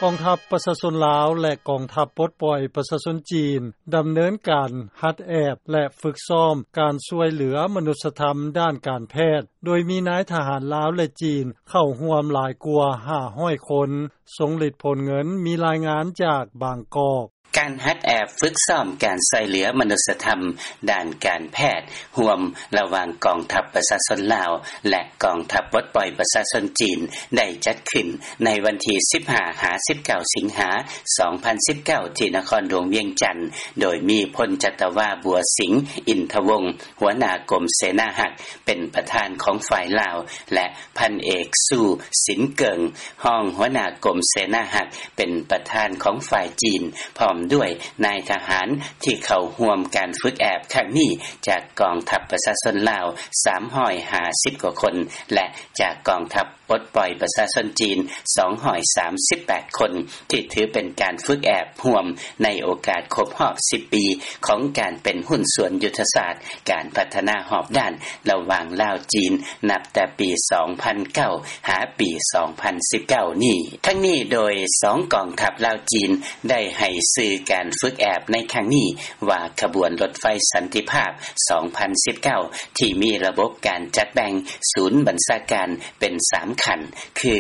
ກອງທັບປະຊາຊົນລາວ ແລະ ກອງທັບປົດປ່ອຍປະຊາຊົນຈີນ ດຳເນີນການຫັດແອບ ແລະ ຝຶກຊ້ອມການຊ່ວຍເຫຼືອມະນຸດສະທຳດ້ານການແພດ ໂດຍມີນາຍທະຫານລາວ ແລະ ຈີນ ເຂົ້າຮ່ວມຫຼາຍກວ່າຫ້າຮ້ອຍຄົນ. ຊົງລິດ ໂພນເງິນ ມີລາຍງານຈາກບາງກອກ. ການຫັດແອບຝຶກຊ້ອມການຊ່ອຍເຫຼືອມະນຸດສະທຳດ້ານການແພດ ຮ່ວມລະຫວ່າງກອງທັບປະຊາຊົນລາວ ແລະ ກອງທັບປົດປ່ອຍປະຊາຊົນຈີນ ໄດ້ຈັດຂຶ້ນໃນວັນທີສິບຫ້າ ຫາ ສິບເກົ້າ ສິງຫາ ສອງພັນສິບເກົ້າ ທີ່ນະຄອນຫຼວງວຽງຈັນ ໂດຍມີ ພົນຈັດຕະວາ ບົວສິງ ອິນທະວົງ ຫົວໜ້າກົມເສນາຮັກ ເປັນປະທານຂອງຝ່າຍລາວ ແລະ ພັນເອກ ຊູ ສິນເກີງ ຮອງຫົວໜ້າກົມເສນາຮັກ ເປັນປະທານຂອງຝ່າຍຈີນ ພ້ອມດ້ວຍນາຍທະຫານທີ່ເຂົ້າຮ່ວມການຝຶກແອບຄັ້ງນີ້ ຈາກກອງທັບປະຊາຊົນລາວ ສາມຮ້ອຍຫ້າສິບກວ່າຄົນ ແລະ ຈາກກອງທັບປົດປ່ອຍປະຊາຊົນຈີນ ສອງຮ້ອຍສາມສິບແປດຄົນ ທີ່ຖືເປັນການຝຶກແອບຮ່ວມໃນໂອກາດຄົບຮອບສິບປີ ຂອງການເປັນຫຸ້ນສ່ວນຍຸດທະສາດການພັດທະນາຮອບດ້ານ ລະຫວ່າງລາວ-ຈີນ ນັບແຕ່ປີສອງພັນເກົ້າ ຫາປີສອງພັນສິບເກົ້ານີ້. ທັງນີ້ໂດຍສອງກອງທັບລາວ-ຈີນ ໄດ້ໃຫ້ຊື່ການຝຶກແອບໃນຄັ້ງນີ້ວ່າ ຂະບວນລົດໄຟສັນຕິພາບ ສອງພັນສິບເກົ້າ ທີ່ມີລະບົບການຈັດແບ່ງສູນບັນຊາການເປັນສາມຂັ້ນ ຄື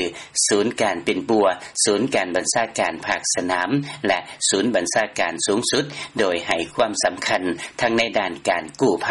ສູນການປິ່ນປົວ, ສູນການບັນຊາການພາກສະໜາມ ແລະ ສູນບັນຊາການສູງສຸດ, ໂດຍໃຫ້ຄວາມສຳຄັນທັງໃນດ້ານການກູ້ໄພ,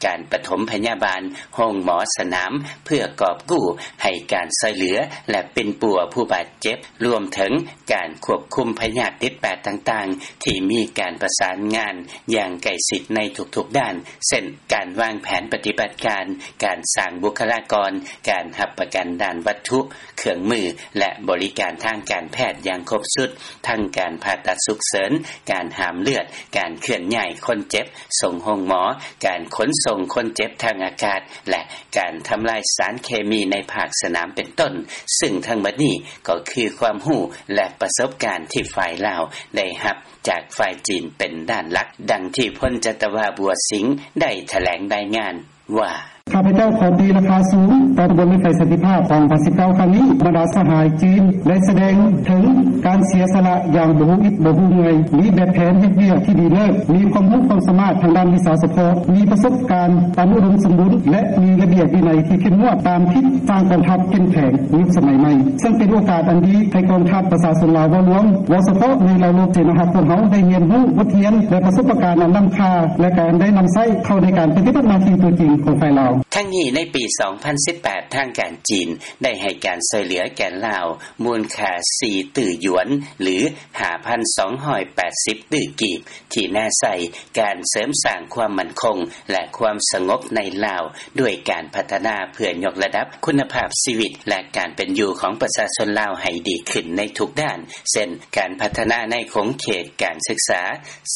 ການປະຖົມພະຍາບານ, ໂຮງໝໍສະໜາມ ເພື່ອກອບກູ້ໃຫ້ການຊ່ອຍເຫຼືອ ແລະ ປິ່ນປົວຜູ້ບາດເຈັບ, ລວມເຖິງການຄວບຄຸມພະຍາດຕິດແປດຕ່າງໆ ທີ່ມີການປະສານງານຢ່າງໃກ້ຊິດໃນທຸກໆດ້ານ ເຊັ່ນ ການວາງແຜນປະຕິບັດການ, ການສ້າງບຸກຄະລາກອນ, ການຮັບປະກັນດ້ານວັດຖຸ, ເຄື່ອງມື ແລະ ບໍລິການທາງການແພດຢ່າງຄົບຊຸດ, ທັງການຜ່າຕັດສຸກເສີນ, ການຫ້າມເລືອດ, ການເຄື່ອນຍ້າຍຄົນເຈັບສົ່ງໂຮງໝໍ, ການຂົນສົ່ງຄົນເຈັບທາງອາກາດ ແລະ ການທຳລາຍສານເຄມີໃນພາກສະໜາມເປັນຕົ້ນ, ຊຶ່ງທັງໝົດນີ້ກໍຄືຄວາມຮູ້ ແລະ ປະສົບການທີ່ຝ່າຍລາວໄດ້ຮັບຈາກຝ່າຍຈີນເປັນດ້ານຫຼັກ, ດັ່ງທີ່ພົນຈັດຕະວາ ບົວສິງ ໄດ້ຖະແຫຼງລາຍງານ ວ່າ: ຂ້າພະເຈົ້າຂໍຕີລາຄາສູງຕໍ່ຂະບວນລົດໄຟສັນຕິພາບ ສອງພັນສິບເກົ້າ ຄັ້ງນີ້. ບັນດາສະຫາຍຈີນໄດ້ສະແດງເຖິງການເສຍສະຫຼະຢ່າງບໍ່ຮູ້ອິດບໍ່ຮູ້ເມື່ອຍ, ມີແບບແຜນເຮັດວຽກທີ່ດີເລີດ, ມີຄວາມຮູ້ຄວາມສາມາດທາງດ້ານວິຊາສະເພາະ, ມີປະສົບການອັນອຸດົມສົມບູນ ແລະ ມີລະບຽບວິໄນທີ່ເຂັ້ມງວດ ຕາມທິດສ້າງກອງທັບເຂັ້ມແຂງຍຸກສະໄໝໃໝ່, ເຊິ່ງເປັນໂອກາດອັນດີໃຫ້ກອງທັບປະຊາຊົນລາວເວົ້າລວມ, ເວົ້າສະເພາະໃນລາວລົບເສນາຮັກຂອງເຮົາໄດ້ຮຽນຮູ້ບົດຮຽນ ແລະ ປະສົບປະການອັນລ້ຳຄ່າ ແລະ ການໄດ້ນຳໃຊ້ເຂົ້າໃນການປະຕິບັດໜ້າທີ່ຕົວຈິງຂອງຝ່າຍລາວ. ທັງນີ້ໃນປີສອງພັນສິບແປດ ທາງການຈີນໄດ້ໃຫ້ການຊ່ວຍເຫຼືອແກ່ລາວມູນຄ່າສີ່ຕື້ຢວນ ຫຼື ຫ້າພັນສອງຮ້ອຍແປດສິບຕື້ກີບ ທີ່ແນໃສ່ການເສີມສ້າງຄວາມໝັ້ນຄົງ ແລະ ຄວາມສະຫງົບໃນລາວ ດ້ວຍການພັດທະນາເພື່ອຍົກລະດັບຄຸນນະພາບຊີວິດ ແລະ ການເປັນຢູ່ຂອງປະຊາຊົນລາວໃຫ້ດີຂຶ້ນໃນທຸກດ້ານ ເຊັ່ນ ການພັດທະນາໃນຂົງເຂດການສຶກສາ,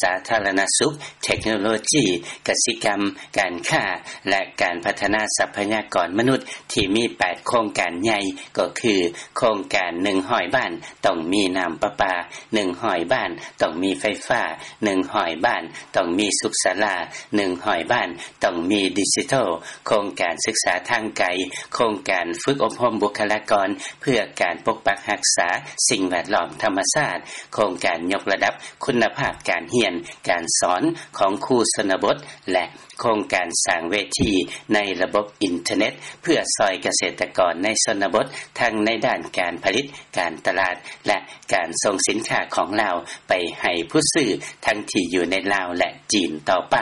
ສາທາລະນະສຸກ, ເທັກໂນໂລຈີ, ກະສິກຳ, ການຄ້າ ແລະ ການພັດທະນາຊັບພະຍາກອນມະນຸດ ທີ່ມີແປດໂຄງການໃຫຍ່ ກໍຄື ໂຄງການໜຶ່ງຮ້ອຍບ້ານ ຕ້ອງມີນ້ຳປະປາ, ໜຶ່ງຮ້ອຍບ້ານ ຕ້ອງມີໄຟຟ້າ, ໜຶ່ງຮ້ອຍບ້ານ ຕ້ອງມີສຸກສາລາ, ໜຶ່ງຮ້ອຍບ້ານ ຕ້ອງມີດິຈິໂຕ, ໂຄງການສຶກສາທາງໄກ, ໂຄງການຝຶກອົບຮົມບຸກຄະລາກອນ ເພື່ອການປົກປັກຮັກສາສິ່ງແວດລ້ອມທຳມະຊາດ, ໂຄງການຍົກລະດັບຄຸນນະພາບການຮຽນການສອນຂອງຄູຊົນນະບົດ ແລະ ໂຄງການສ້າງເວທີໃນລະບົບອິນເຕີເນັດ ເພື່ອຊ່ອຍກະເສດຕະກອນໃນຊົນນະບົດ ທັງໃນດ້ານການຜະລິດ, ການຕະຫຼາດ ແລະ ການສົ່ງສິນຄ້າຂອງລາວໄປໃຫ້ຜູ້ຊື້ ທັງທີ່ຢູ່ໃນລາວ ແລະ ຈີນຕໍ່ໄປ.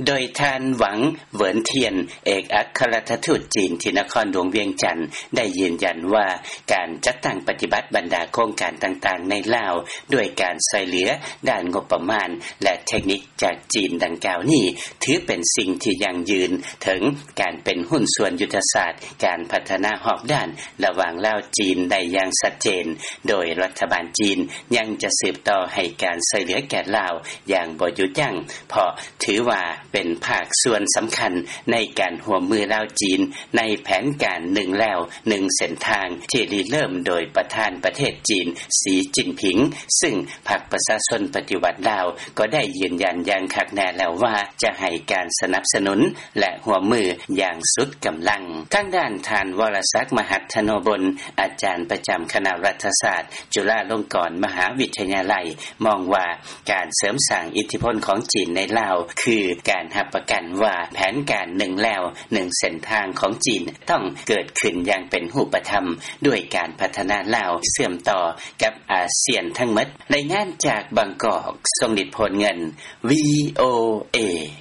ໂດຍທ່ານ ຫວັງ ເຫວິນທຽນ ເອກອັກຄະລັດຖະທູດຈີນທີ່ນະຄອນຫຼວງວຽງຈັນ ໄດ້ຢືນຢັນວ່າ ການຈັດຕັ້ງປະຕິບັດບັນດາໂຄງການຕ່າງໆໃນລາວ ດ້ວຍການຊ່ວຍເຫຼືອດ້ານງົບປະມານ ແລະ ເທັກນິກ ຈາກຈີນດັ່ງກ່າວນີ້ ຖືເປັນສິ່ງທີ່ຢັ້ງຢືນເຖິງການເປັນຫຸ້ນສ່ວນຍຸດທະສາດການພັດທະນາຮອບດ້ານລະຫວ່າງລາວ-ຈີນໄດ້ຢ່າງຊັດເຈນ, ໂດຍລັດຖະບານຈີນຍັງຈະສືບຕໍ່ໃຫ້ການຊ່ວຍເຫຼືອແກ່ລາວຢ່າງບໍ່ຢຸດຢັ້ງ, ເພາະຖືວ່າເປັນພາກສ່ວນສຳຄັນໃນການຮ່ວມມືລາວ-ຈີນ ໃນແຜນການໜຶ່ງແລວໜຶ່ງເສັ້ນທາງ ທີ່ລິເລີ່ມໂດຍປະທານປະເທດຈີນ ສີຈິ້ນຜິງ, ຊຶ່ງ ພັກປະຊາຊົນປະຕິວັດລາວກໍໄດ້ຢືນຢັນຢ່າງຄັກແນ່ແລ້ວວ່າ ຈະໃຫ້ການສະ ສະໜັບສະໜູນ ແລະ ຮ່ວມມື ຢ່າງສຸດກຳລັງ. ທາງດ້ານ ທ່ານ ວໍລະສັກ ມະຫັດທະໂນບົນ ອາຈານ ປະຈຳ ຄະນະລັດຖະສາດ ຈຸລາລົງກອນ ມະຫາວິທະຍາໄລ ມອງວ່າ ການເສີມສ້າງ ອິດທິພົນ ຂອງຈີນ ໃນລາວ ຄືການຮັບປະກັນວ່າ ແຜນການ ໜຶ່ງລາວ ໜຶ່ງເສັ້ນທາງ ຂອງຈີນ ຕ້ອງເກີດຂຶ້ນ ຢ່າງເປັນຮູບປະທຳ ດ້ວຍການພັດທະນາລາວ ເຊື່ອມຕໍ່ກັບອາຊຽນ ທັງໝົດ. ລາຍງານຈາກບາງກອກ ຊົງລິດ ໂພນເງິນ ວີໂອເອ.